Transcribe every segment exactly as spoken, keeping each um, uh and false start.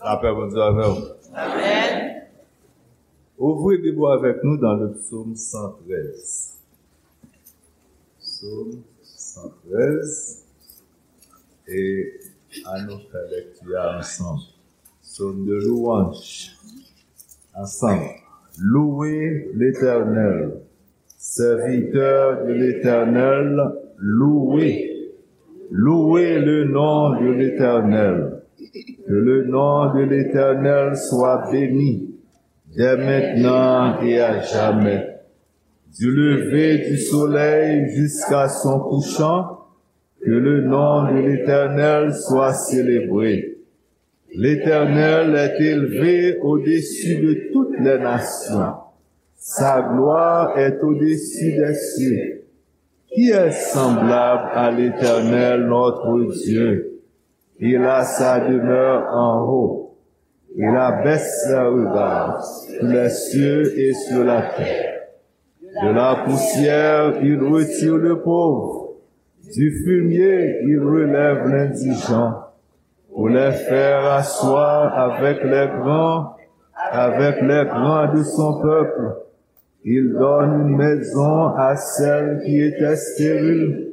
Lapè Bondye avè w. Amèn. Ouvri Bib ou avèk nou dans le psaume cent treize. Psaume cent treize. E ann nou fè lèkti a ansanm. Psaume de louange. Ansanm. Louez l'Éternel. Serviteurs de l'Éternel, louez. Louez le nom de l'Éternel. Que le nom de l'Éternel soit béni, dès maintenant et à jamais. Du lever du soleil jusqu'à son couchant, que le nom de l'Éternel soit célébré. L'Éternel est élevé au-dessus de toutes les nations. Sa gloire est au-dessus des cieux. Qui est semblable à l'Éternel notre Dieu? Il a sa demeure en haut. Il abaisse ses regards sur les cieux et sur la terre. De la poussière, il retire le pauvre. Du fumier, il relève l'indigent. Pour les faire asseoir avec les grands, avec les grands de son peuple. Il donne une maison à celle qui était stérile.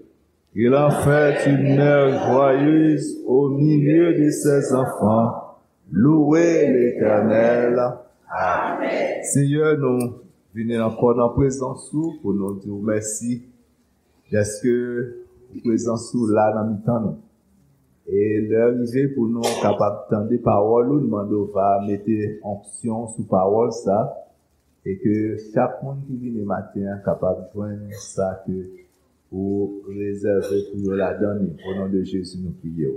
Il en fait une mère joyeuse au milieu de ses enfants. Louez l'Éternel. Amen. Senyè, nou vini ankò nan prezans ou pou nou di w mèsi dèske prezans ou la nan mitan nou. E lè rive pou nou kapab tande pawòl ou, nou mande w va mete onksyon sou pawòl sa, e ke chak moun ki vini maten an kapab jwenn sa ke ou rezève pou yo ladan li. O non de Jezi, nou priye w.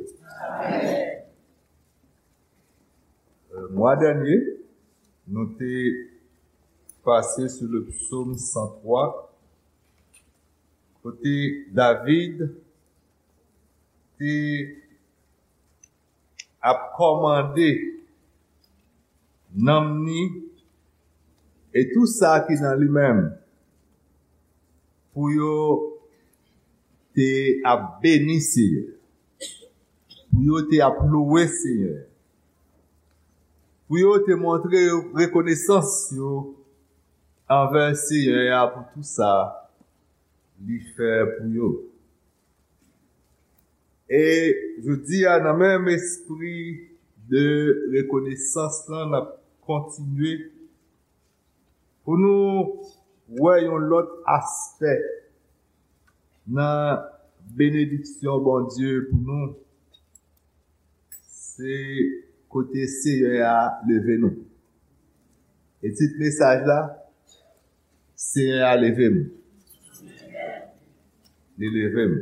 Euh, mwa dènye, nou te pase sou le psaume cent trois, kote David te ap kòmande nanm ni e tou sa ki nan li menm pou yo te ap beni Senyè, pou yo te ap louwe Senyè, pou yo te montre rekonesans yo anvè Senyè a pou tou sa li fè pou yo. E jodi a, nan menm espri de rekonesans lan, n ap kontinye pou nou wè yon lòt aspè nan benediksyon Bondye pou nou. Se kote Senyè a leve nou. E tit mesaj la, Senyè a leve m. Li leve m.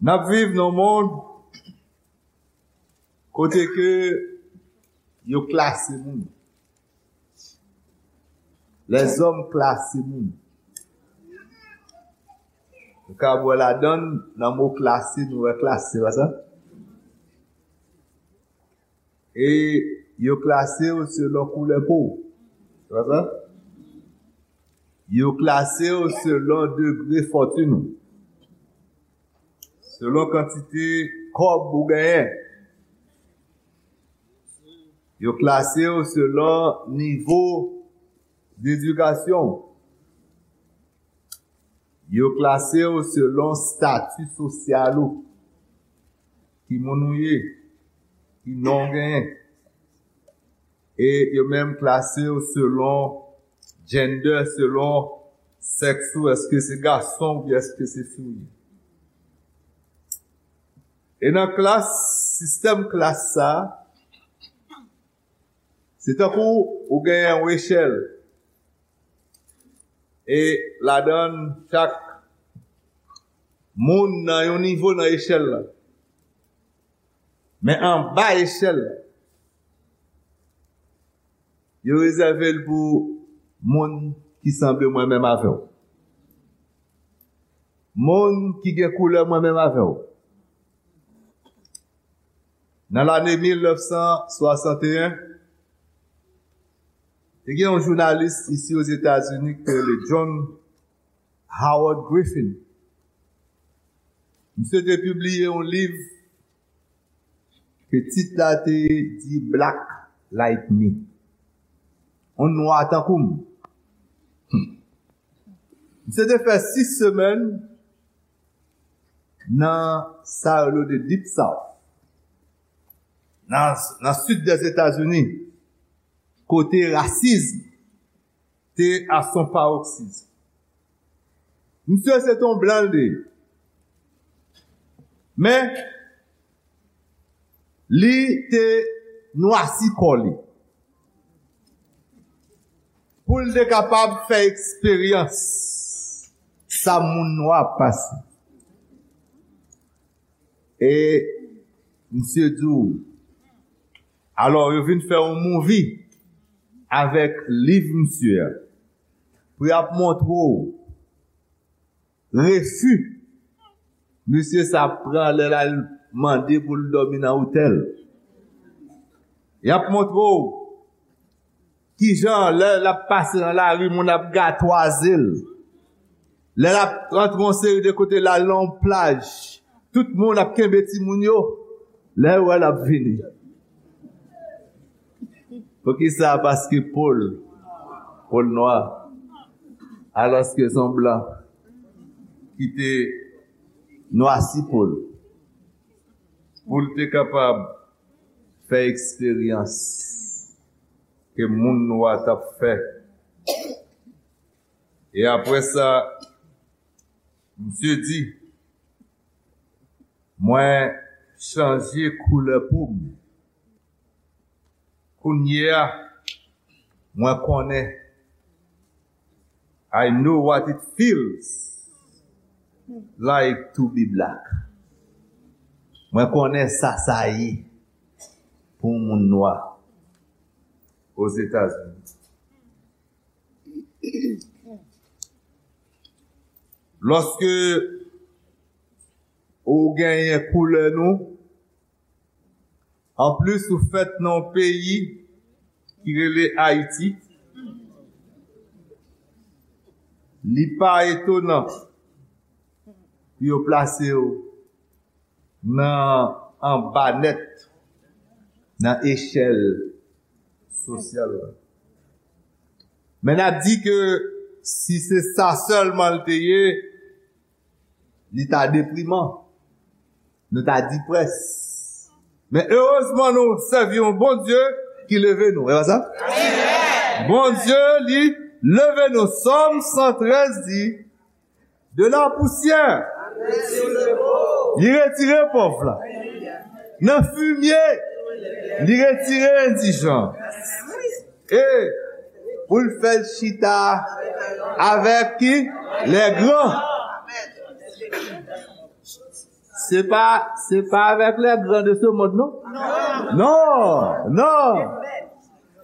N ap viv nan yon mond kote ke yo klase moun. Lèzòm klase moun. Nou ka wè ladan, nan mo klase, nou wè klas, se pa sa? E yo klase w selon koulè po w. Se pa sa? Yo klase w selon degre fòtin ou. Selon kantite kòb ou genyen. Yo klase w selon nivo dedikasyon w. Yo klase w selon stati sosyal ou. Ki moun ou ye, ki non w genyen. E yo menm klase w selon gender, selon sèks ou, èske se gason oubyen èske se fi w ye. E nan klas, sistèm klas sa, se tankou ou genyen yon echèl. E ladan chak moun nan yon nivo nan echèl la. Men anba echèl la, yo rezève l pou moun ki sanble mwen menm avè w. Moun ki gen koulè mwen menm avè w. Nan lane mil nèf san swasanteyen, te gen yon jounalis isi Ozetazini ki rele John Howard Griffin. Misye te pibliye yon liv ke tit la te di Black Like Me. Yon nwa tankou m. Hmm. Misye te fè sis semèn nan sa yo rele the Deep South, nan, nan sid Dèzetazini, kote rasism te à son paroxysme. Misye se te yon blan l te ye. Men, li te nwasi kò li. Pou l te kapab fè eksperyans sa moun nwa ap pase. E misye di w, alò, yo vin fè yon movie avèk liv misye a. Pou y ap montre w refi misye sa pran lè l al mande pou l dòmi nan otèl. Y ap montre w kijan lè l ap pase nan lari, moun ap gatwaze l. Lè l ap rantre yon seri de kote, l al nan yon plaj, tout moun ap kenbe timoun yo. Lè yo wè l ap vini. Poukisa? Paske po l, po l nwa. Alòske se yon blan ki te nwasi po l. Pou l te kapab fè eksperyans ke moun nwa t ap fè. E apre sa, misye di, mwen chanje koulè po m. Kounye a, mwen konnen. I know what it feels like to be black. Mwen konnen sa sa ye pou yon moun nwa Ozetazini. Lòske ou genyen koulè nou, anplis ou fèt nan yon peyi ki rele Ayiti, li pa etonan pou yo plase w nan anba nèt nan echèl sosyal la. Men n ap di ke si se sa sèlman l te ye, li ta depriman. Nou ta di près. Men erezman nou sèvi yon Bondye ki leve nou. E pa sa? Bondye li leve nou. Sòm san trèz di, de la poussière, li retire pòv la. Nan fimye, li retire endijan. E pou l fè l chita avèk ki? Lè gran. Se pa, se pa avèk lè gran de se mond, non? Non, non.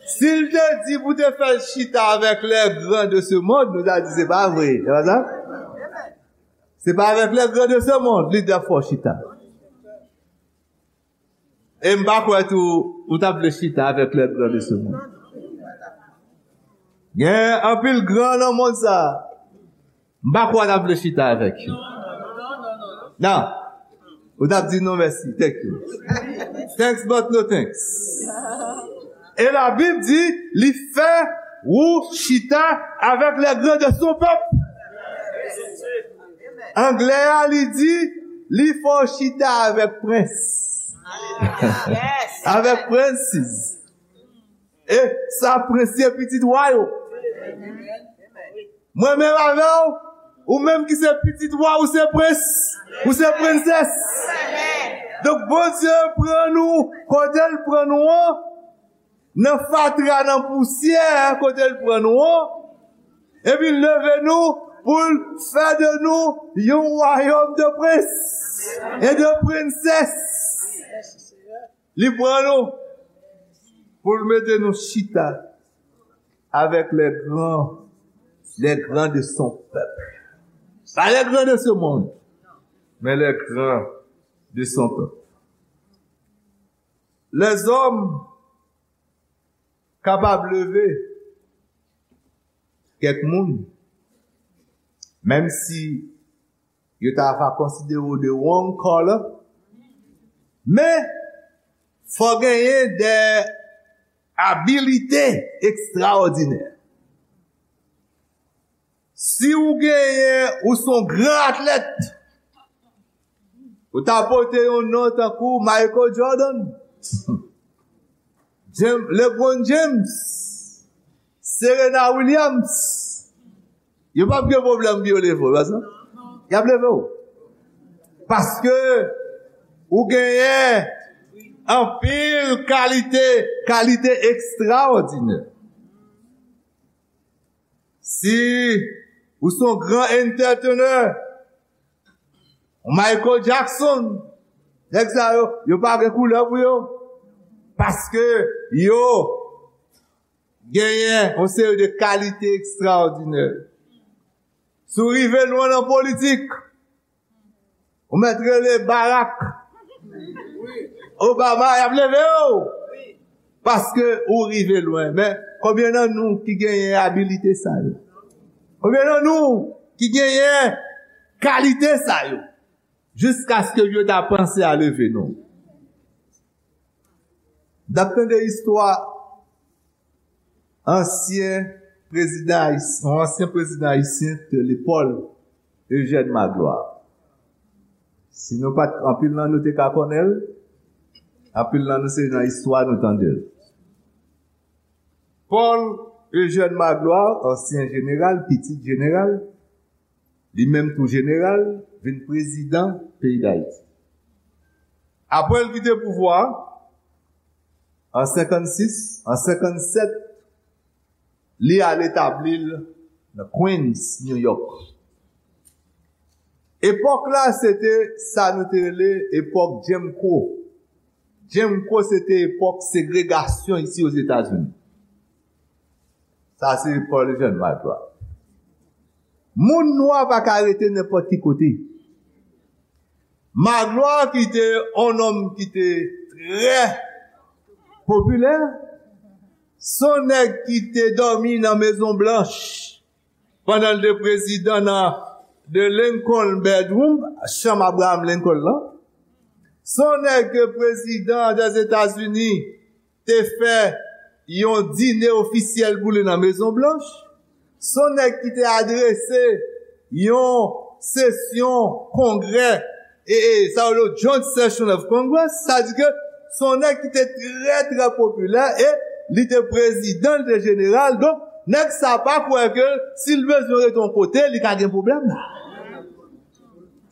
Si l te di pou te fè l chita avèk lè gran de se mond, nou ta di se pa vre. Se pa sa? Se pa avèk lè gran de se mond, li t ap fè w chita. E m pa kwè tou, ou t ap vle chita avèk lè gran de se mond. Gen anpil gran nan mond sa a. M pa kwè w t ap vle chita avèk yo. Non. Ou t ap di non mèsi, thank you. Thanks but no thanks. E Labib di, li fè ou chita avèk lè gran de son pèp. Anglè a, li di, li fè w chita avèk prens. Avèk princes. E sa prens ye, pitit wa yo. Mwen menm avè w, ou menm ki se pitit wa, ou se prens, ou se prensès. Donk, Bondye pran nou, kote l pran nou an, nan fatra, nan pousyè, kote l pran nou an, epi l leve nou pou l fè de nou yon wayòm de prens e de prensès. Li pran nou pou l mete nou chita avec les grands, les grands de son peuple. Pas les grands de ce monde, mais les grands de son peuple. Lèzòm kapab leve kèk moun, menm si yo ta va konsidere w de wrong color, men Fò genyen de abilite ekstraòdinè. Si ou genyen, ou se yon gran atlèt, ou ta pote yon non tankou Michael Jordan, James, LeBron James, Serena Williams, yo p ap gen pwoblèm pou yo leve w, pa sa? Y ap leve w. Paske ou genyen anpil kalite, kalite ekstraòdinè. Si ou se yon gran entertainer, yon Michael Jackson, nèg sa yo, yo pa gen koulè pou yo. Paske yo genyen yon seri de kalite ekstraòdinè. Si w rive lwen nan politik, ou mèt rele Barack Obama, y ap leve w. Paske ou rive lwen. Men, konbyen nan nou ki genyen abilite sa yo? Konbyen nan nou ki genyen kalite sa yo? Jiskaske yo ta panse a leve nou. N ap tande istwa ansyen prezidan ayis-, yon ansyen prezidan ayisyen te rele Paul Eugène Magloire. Si nou pa t, anpil nan nou te ka konnen l, anpil nan nou se nan istwa nou tande l. Paul Eugène Magloire, ansyen jeneral, pitit jeneral, li menm tou jeneral, vin prezidan peyi Dayiti. Apre l kite pouvwa a, an senkannsis, an senkannsèt, li al etabli l nan Queens, New York. Epòk la, se te sa nou te rele epòk Jim Crow. Jim Crow, se te epòk segregasyon isi Ozetazini. Sa se Paul Eugène Magloire. Moun nwa pa ka rete nenpòt ki kote. Magloire ki te yon nonm ki te trè popilè, se yon nèg ki te dòmi nan Mezon Blanch pandan l te prezidan nan The Lincoln Bedroom, chanm Abraham Lincoln lan. Se yon nèg ke prezidan Dèzetazini te fè yon dine ofisyèl pou li nan Mezon Blanch. Se yon nèg ki te adrese yon sesyon kongrè, e, e, sa yo rele Joint Session of Congress, sa di ke se yon nèg ki te trè, trè popilè, e li te prezidan, li te jeneral. Donk, nèg sa pa kwè ke si l bezwen rete yon kote, li ka gen pwoblèm la.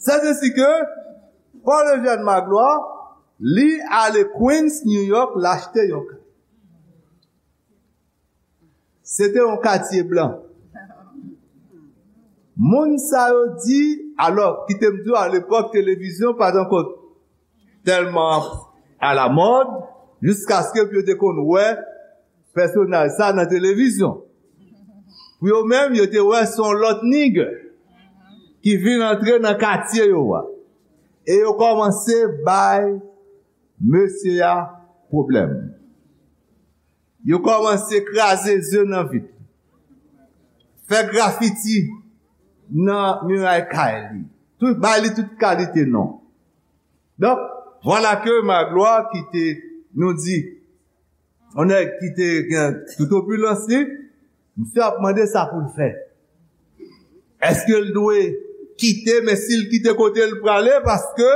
Sètesi ke Paul Eugène Magloire, li ale Queens, New York, l achte yon kay. Se te yon katye blan. Moun sa yo di, alò, kite m di w, alepòk, televizyon pa t ankò tèlman alamòd, jiskaske pou yo te konn wè pèsonaj sa nan televizyon. Pou yo menm, yo te wè se yon lòt nigger ki vin antre nan katye yo a. E yo kòmanse bay mesye a pwoblèm. Yo kòmanse kraze ze nan vit. Fè grafiti nan miray kay li. Tout, bay li tout kalite non. Donk, vwala ke Magloire ki te, nou di, yon nèg ki te gen tout opilans li, misye ap mande sa pou l fè. Èske l dwe kite, men si l kite kote l prale, paske,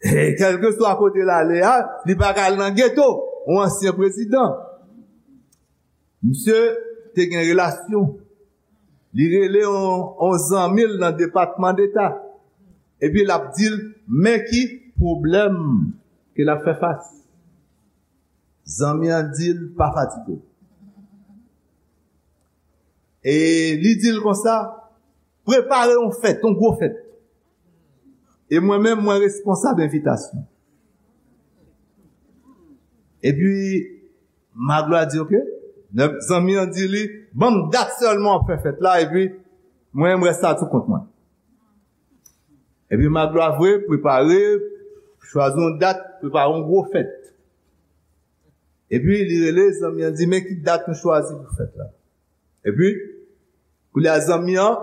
e, kèlkeswa kote l ale a, li pa ka al nan geto, yon ansyen prezidan. Misye te gen relasyon. Li rele yon, yon zanmi l nan Depatman Deta. Epi l ap di l, men ki pwoblèm ke l ap fè fas. Zanmi an di l, pa fatige w. E li di l konsa, prepare yon fèt, yon gwo fèt. E mwen menm, mwen responsab envitasyon. Epi, Magloire di, oke. Zanmi an di li, ban m dat sèlman w ap fè fèt la, epi mwen, m rès la sou kont mwen. Epi Magloire vre, prepare, chwazi yon dat, prepare yon gwo fèt. Epi li rele zanmi an, di, men ki dat nou chwazi pou fèt la. Epi, kounye a zanmi an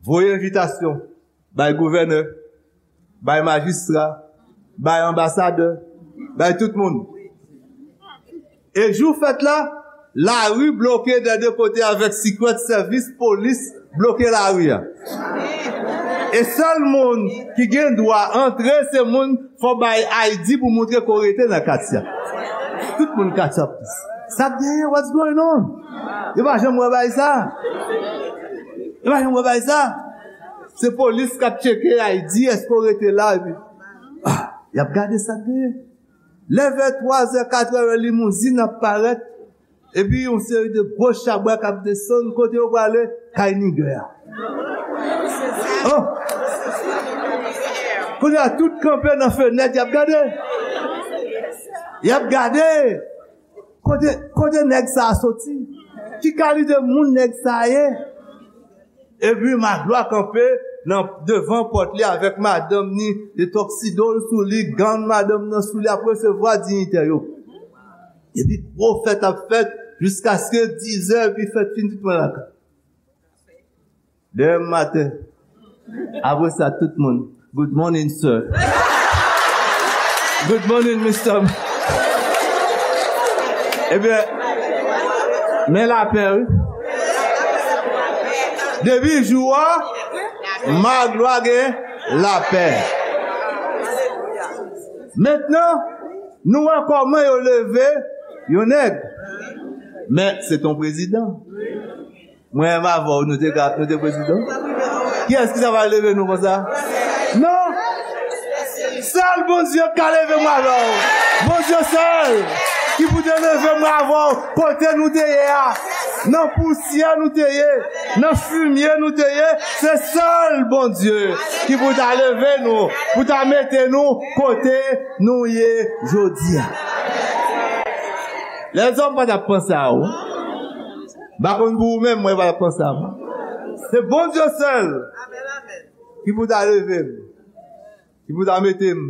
voye envitasyon bay gouvènè, bay majistra, bay anbasadè, Bay tout moun. E jou fèt la, lari bloke dè de kote avèk Secret Service, polis bloke lari a. E sèl moun ki gen dwa antre, se moun, fò bay I D pou montre kote w rete nan katye a. Tout moun katye a. Sa k genyen? What's going on? Yo pa janm wè bay sa. Yo pa janm wè bay sa. Se polis k ap tcheke I D, èske w rete la, epi, ah, y ap gade sa k genyen. Lè vè twazè, katrè, limouzin ap parèt, epi yon seri de gwo chabrak ap desann, kote yo prale? Kay nigè a. Oh! Kounye a, tout kanpe nan fenèt, y ap gade. Y ap gade. Kote, kote nèg sa a soti? Ki kalite moun nèg sa a ye? Epi Maglwa kanpe nan devan pòt li avèk madanm ni, de tuxedo l sou li, gown madanm nan sou li, ap resevwa diyitè yo. Epi gwo fèt ap fèt jiskaske dizè, epi fèt fin, tout moun lakay. Demen maten, apre sa, tout moun, "Good morning, sir." "Good morning, mister." Ebyen, men lapè, wi. Depi jou a, Maglwa gen lapè. Mentnan, nou wè kòman yo leve yon nèg. Men, se t on prezidan. Mwen menm avè w, nou te ka, nou te prezidan. Kiyès ki ta pral leve nou konsa? Non! Sèl Bondye k ka leve mwen avè w. Bondye sèl ki pou te leve mwen avè w kote nou te ye a. Nan pousyè nou te ye, nan fimye nou te ye, se sèl Bondye ki pou ta leve nou, pou ta mete nou kote nou ye jodi a. Lèzòm pa t ap panse a ou. M pa konn pou ou menm, mwen pa t ap panse a mwen. Se Bondye sèl ki pou ta leve m, ki pou ta mete m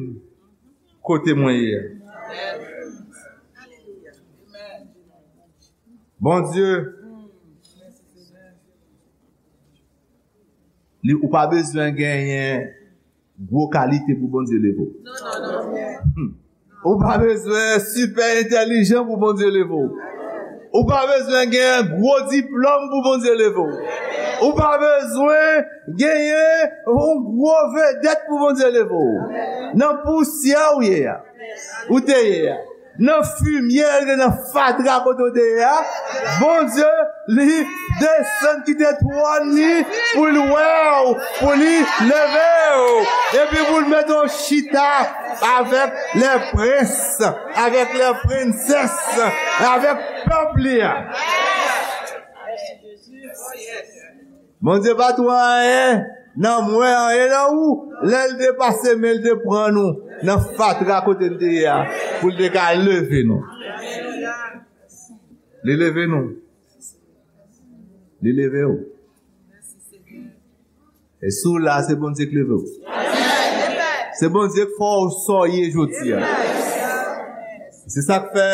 kote mwen ye a. Bondye, li, ou pa bezwen genyen gwo kalite pou Bondye leve w. Hmm. Ou pa bezwen sipè entèlijan pou Bondye leve w. Ou pa bezwen gen gwo diplòm pou Bondye leve w. Ou pa bezwen genyen yon gwo vedèt pou Bondye leve w. Nan pousyè ou ye a, ou te ye a, nan fimye, nan fatra kote w te ye a, Bondye, li desann kite twòn li pou l wè w, pou li leve w, epi pou l mete w chita avèk lè prens, avèk lè prensès, avèk pèp li a. Bondye pa tou anyen nan mwen, anyen nan ou, lè l te pase men l te pran nou nan fatra kote n te ye a, pou l te ka leve nou. Li leve nou. Li leve w. E si w la, se Bondye k leve w. Se Bondye k fè w sa w ye jodi a. Se sa k fè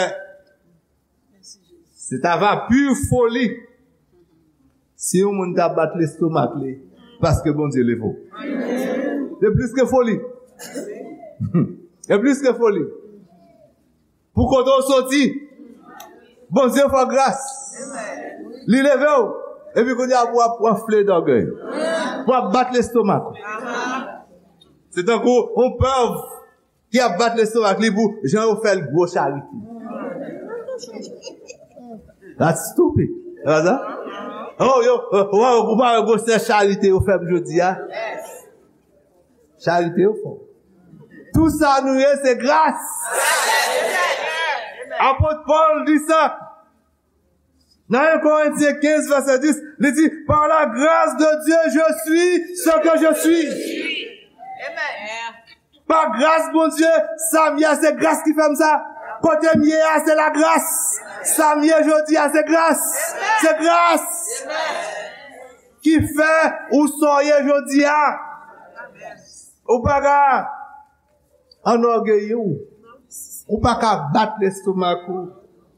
se ta va pi foli si yon moun ta bat lestomak li paske Bondye leve w. Se plis ke foli. Se plis ke foli. Pou kote w soti, Bondye fè w gras. Li leve w. Epi kounye a pou w ap anfle dògèy. Pou w ap bat lestomak ou. Se tankou yon pèv ki ap bat lestomak li pou jan yo fè l gwo charite. That's stupid. Se pa sa? Oh, yo, oh, oh, ou pa wè gwosè charite yo fè m jodi a? Charite yo fè w. Tou sa nou ye, se gras. Apot Pòl di sa. Nan en Korentyen kenz, vèsè dis, li di, "Par la grâce de Dieu, je suis ce que je suis." Pa gras Bondye, sa m ye a, se gras ki fè m sa. Kote m ye a, se lagras. Sa m ye jodi a, se gras. Se gras ki fè ou sa w ye jodi a. Ou pa ka anògeyi w. Ou pa ka bat lestomak ou.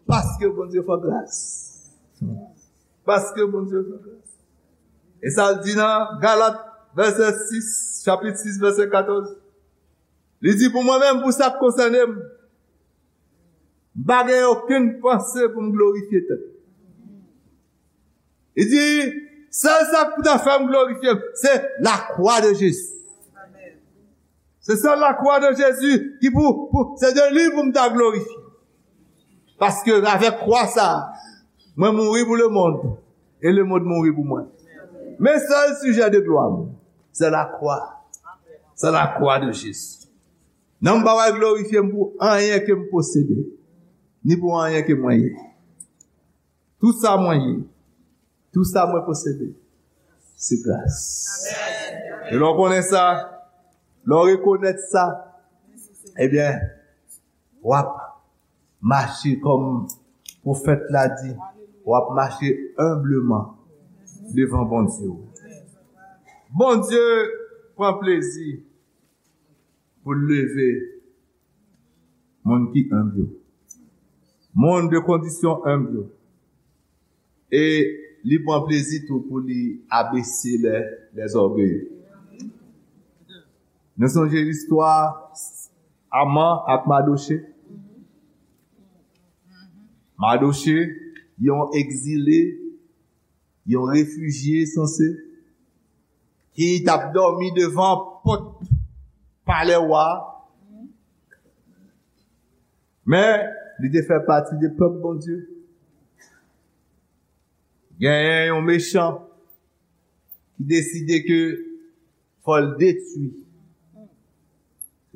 Paske Bondye fè w gras. Paske Bondye fè w gras. E sa l di nan Galat, vèsè sis, chapit sis, vèsè katòz. Li di, "Pou mwen menm, pou sa k konsène m, M pa gen okenn panse pou m glorifye tèt. Li di, sèl sa k pou ta fè m glorifye m, se lakwa de Jezi. Se sèl lakwa de Jezi ki pou, pou se de li pou m ta glorifye. Paske avèk kwa sa, mwen mouri pou lemonn, e lemonn mouri pou mwen. Men sèl sijè de glwa m, se lakwa. Se lakwa de Jezi. Non m pa pral glorifye m pou anyen ke m posede, ni pou anyen ke mwen ye. Tout sa mwen ye, tout sa mwen posede, se gras. E lè w konnen sa, lè w rekonèt sa, ebyen, w ap mache kòm pwofèt la di, w ap mache enbleman devan Bondye w. Bondye pran plezi pou l leve moun ki enb yo, moun de kondisyon enb yo. E li pran plezi tou pou li abese lè, lèzògeye. Nou sonje listwa Aman ak Madoche. Madoche, yon egzile, yon refijye sanse, ki t ap dòmi devan pòt palè wa a. Men, li te fè pati de pèp Bondye. Genyen yon mechan ki deside ke fò l detwi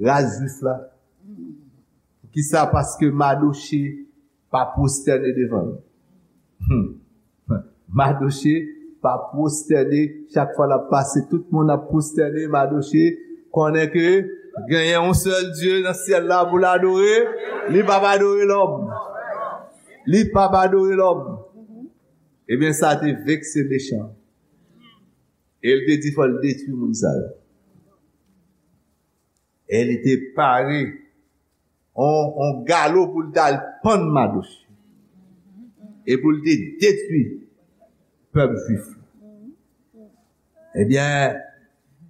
ras jwif la. Poukisa? Paske Madoche pa pwostène devan l. Hmm. Madoche pa pwostène. Chak fwa l ap pase, tout moun ap pwostène. Madoche konnen ke genyen yon sèl Dye nan syèl la pou l adore. Li p ap adore lòm. Li p ap adore lòm. Ebyen, sa te vekse mechan. E l te di fò l detwi moun sa yo. E li te pare on, on galo pou l t al pann Madoche. E pou l te detwi pèp jwif la. Ebyen,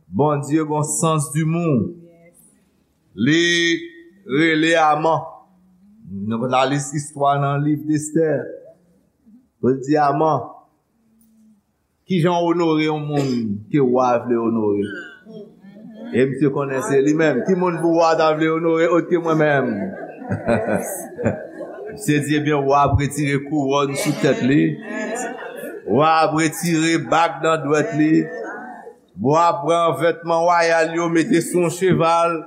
Bondye gon sans dimou. Li rele Aman. Nou konn lis istwa nan liv Estè. Pou l di Aman, kijan w onore yon moun ke wa vle onore? E misye konnen se li menm. Ki moun pou wa ta vle onore òt ke mwen menm? Misye di, ebyen, wa ap retire kouwòn sou tèt li. Wa ap retire bag nan dwèt li. Wa ap pran vètman wayal yo, mete sou yon cheval.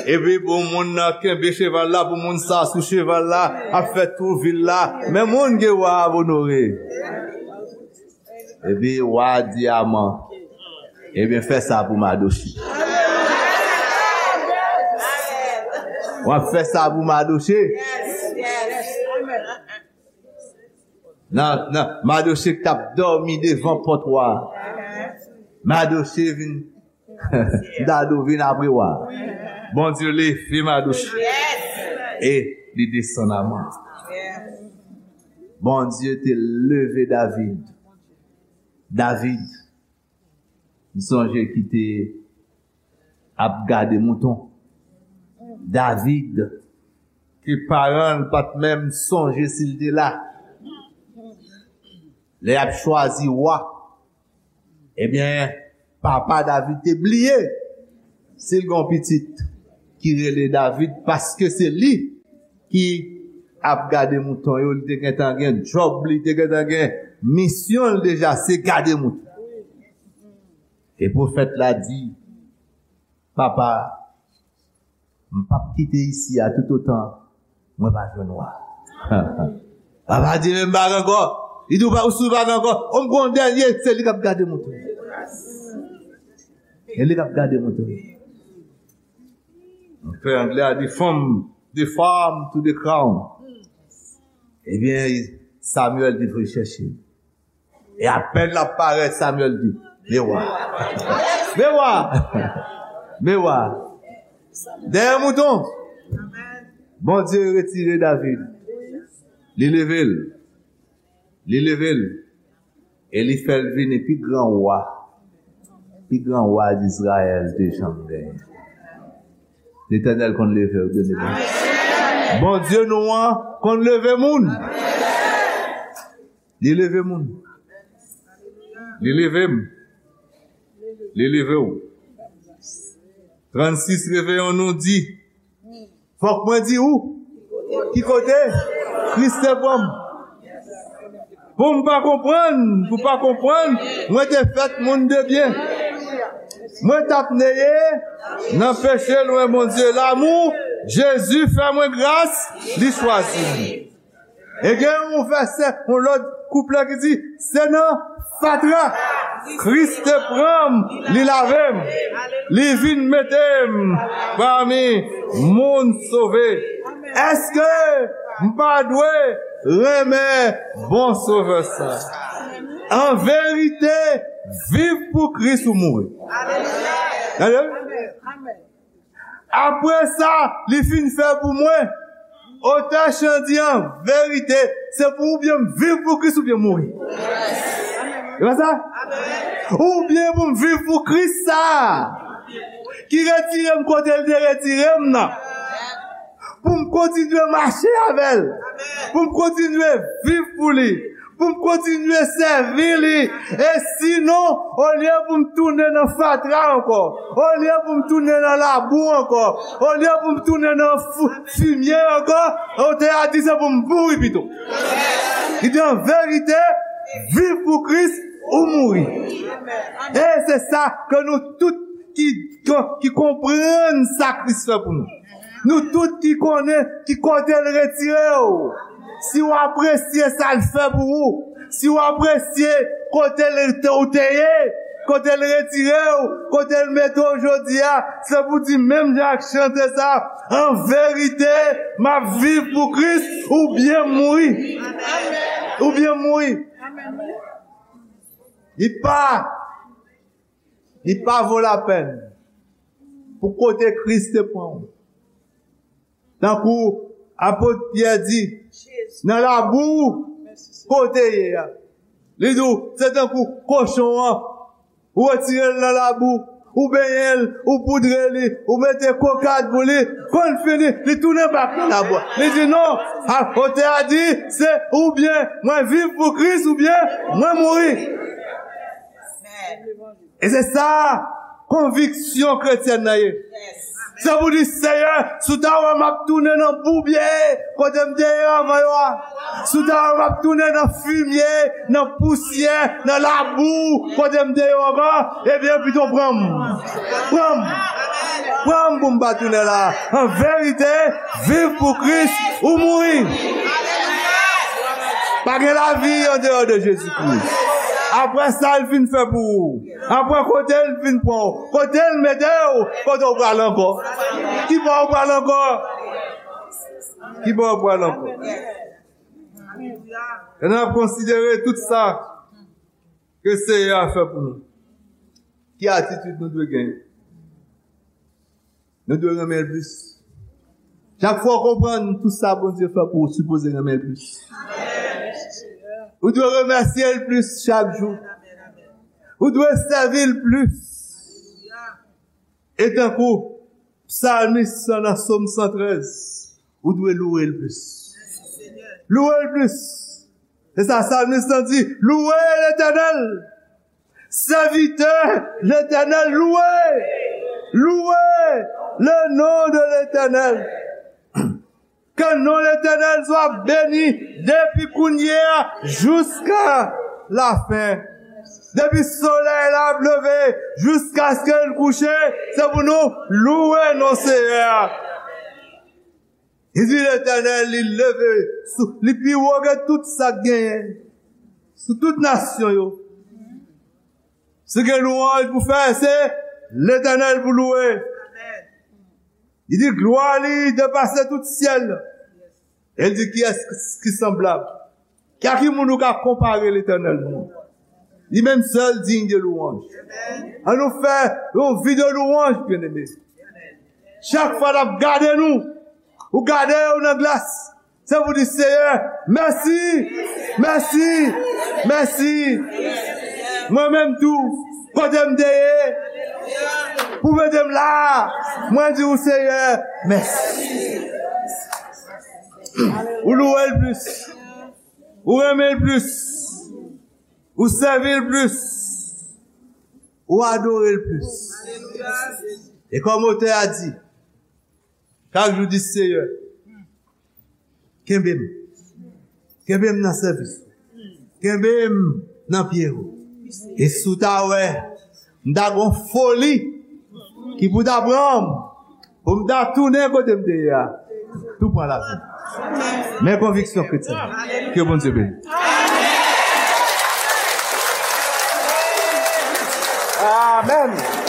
Epi pou moun nan kenbe cheval la, pou moun sa sou cheval la, ap fè tou vil la. Men moun ke wa ap onore. Epi wa di Aman, ebyen, fè sa pou Madoche. W ap fè sa pou Madoche. Nan, nan, Madoche k t ap dòmi devan pòt wa a. Madoche vin, Dado vin apre wa a. Bondye leve Madoche. E li desann Aman. Bondye te leve David. David, m sonje ki te ap gade mouton. David, ke paran l pa t menm sonje si l te la. Lè y ap chwazi wa, ebyen, papa David te bliye si l gen yon pitit ki rele David, paske se li ki ap gade mouton yo, li te gentan gen djòb li, te gentan gen misyon l deja, se gade mouton. E pwofèt la di, papa, m p ap kite isi a toutotan mwen pa jwenn wa. Papa di, men m pa gen ankò. Li di, ou pa, ou si w pa gen ankò. O, m gon dènye, se li k ap gade mouton. Se li k ap gade mouton. Anglè a di, from the farm to the crown. Ebyen, Samuel te voye chèche. E apèn l ap parèt, Samuel di, men wa. Men wa. Men wa. Dèyè mouton. Bondye retire David. Li leve l. Li leve l. E li fè l vini pi gran wa. Pi gran wa Izrayèl te janm genyen. Letènèl konn leve w, byeneme. Bondye nou an konn leve moun. Li leve moun. Li leve m. Li leve w. Trannsis Reveyon nou di, fòk mwen di ou ki kote Kris te pran m. Pou m pa konprann, pou pa konprann, mwen te fèt moun de byen. Mwen t ap neye nan peche lwen Bondye. Lanmou Jezi fè mwen gras, li chwazi m. E gen yon vèsè, yon lòt kouplet ki di, se nan fatra Kris te pran m, li lave m, li vin mete m pami moun sove. Èske m pa dwe renmen bon Sovè sa? An verite, viv pou Kris ou mouri. Tande? Apre sa li fin fè pou mwen, otè chan di an verite, se pou oubyen m viv pou Kris oubyen mouri. E pa sa? Oubyen pou m viv pou Kris sa ki retire m kote l te retire m nan. Pou m kontinye mache avè l. Pou m kontinye viv pou li. Pou m kontinye sèvi li. E sinon, olye pou m tounen nan fatra ankò, olye pou m tounen nan labou ankò, olye pou m tounen nan fou-, fimye ankò, otè a di se pou m mouri pito. Li di an verite, viv pou Kris ou mouri. E se sa ke nou tout ki, ki, ki konprann sa Kris fè pou nou. Nou tout ki konnen ki kote l retire w. Si w apresye sa l fè pou ou, si w apresye kote l te, ou te ye, kote l retire w, kote l mete w jodi a, se pou di menm jan ak chante sa, an verite, m ap viv pou Kris oubyen mouri. Oubyen mouri. Li pa Li pa vo lapèn pou kote Kris te pran w. Tankou apot Pyè di, nan labou kote ye a. Li di w, se tankou kochon an, ou retire l nan labou, ou benyen l, ou poudre li, ou mete kokad pou li, konn fini, li tounen bak nan labou a. Li di non, a, otè a di, se oubyen mwen viv pou Kris, oubyen mwen mouri. E se sa konviksyon kretyèn nan ye. Se pou di, Seyè, si w ta wè m ap tounen nan boubye kote m te ye anvan yo a, si w ta wè m ap tounen nan fimye, nan pousyè, nan labou kote m te ye anvan, ebyen, pito pran m. Pran m. Pran m pou m pa tounen la. An verite, viv pou Kris ou mouri. Pa gen lavi andeyò de Jezi Kris. Apre sa l fin fè pou ou, apre kote l fin pran w, kote l mete w, kote w pral ankò? Ki bò w pral ankò? Ki bò w pral ankò? E n ap konsidere tout sa ke Seyè a fè pou nou. Ki atitid nou dwe genyen? Nou dwe renmen l plis. Chak fwa w konprann tout sa Bondye fè pou ou, ou sipoze renmen l plis. Ou dwe remèsye l plis chak jou. Ou dwe sèvi l plis. E tankou psalmis lan nan Sòm san trèz, ou dwe louwe l plis. Louwe l plis. Se sa psalmis lan di, louwe Letènèl. Serviteur l'Éternel, louez, louez le nom de l'Éternel. Que le nom de l'Éternel soit béni depuis kounye a jusqu'à la fin. Depi solèy la ap leve jiskaske l kouche, se pou nou louwe non Seyè a. Li di Letènèl, li leve, sou, li pi wo ke tout sa k genyen, sou tout nasyon yo. Si gen lwanj pou fè, se Letènèl pou louwe. Li di glwa li depase tout syèl. E li di, kiyès ki sanblab? Ki a ki moun ou ka konpare Letènèl nou? Li menm sèl diy de louwanj. An nou fè yon vi de louwanj, byeneme. Chak fwa n ap gade nou, ou gade w nan glas, se pou di, Seyè, mèsi, mèsi, mèsi. Mwen menm tou, kote m te ye, pou mete m la, mwen di w, Seyè, mèsi. Ou louwe l plis. Ou renmen l plis. Ou sèvi l plis. Ou adore l plis. E kòm otè a di, chak jou di, Seyè, kenbe m. Kenbe m nan sèvis ou. Kenbe m nan pye ou. E si w ta wè, m ta gon foli ki pou ta pran m, pou m ta tounen kote m te ye a, tou pran lavi m. Men konviksyon kretyen. Ke Bondye beni. Amèn.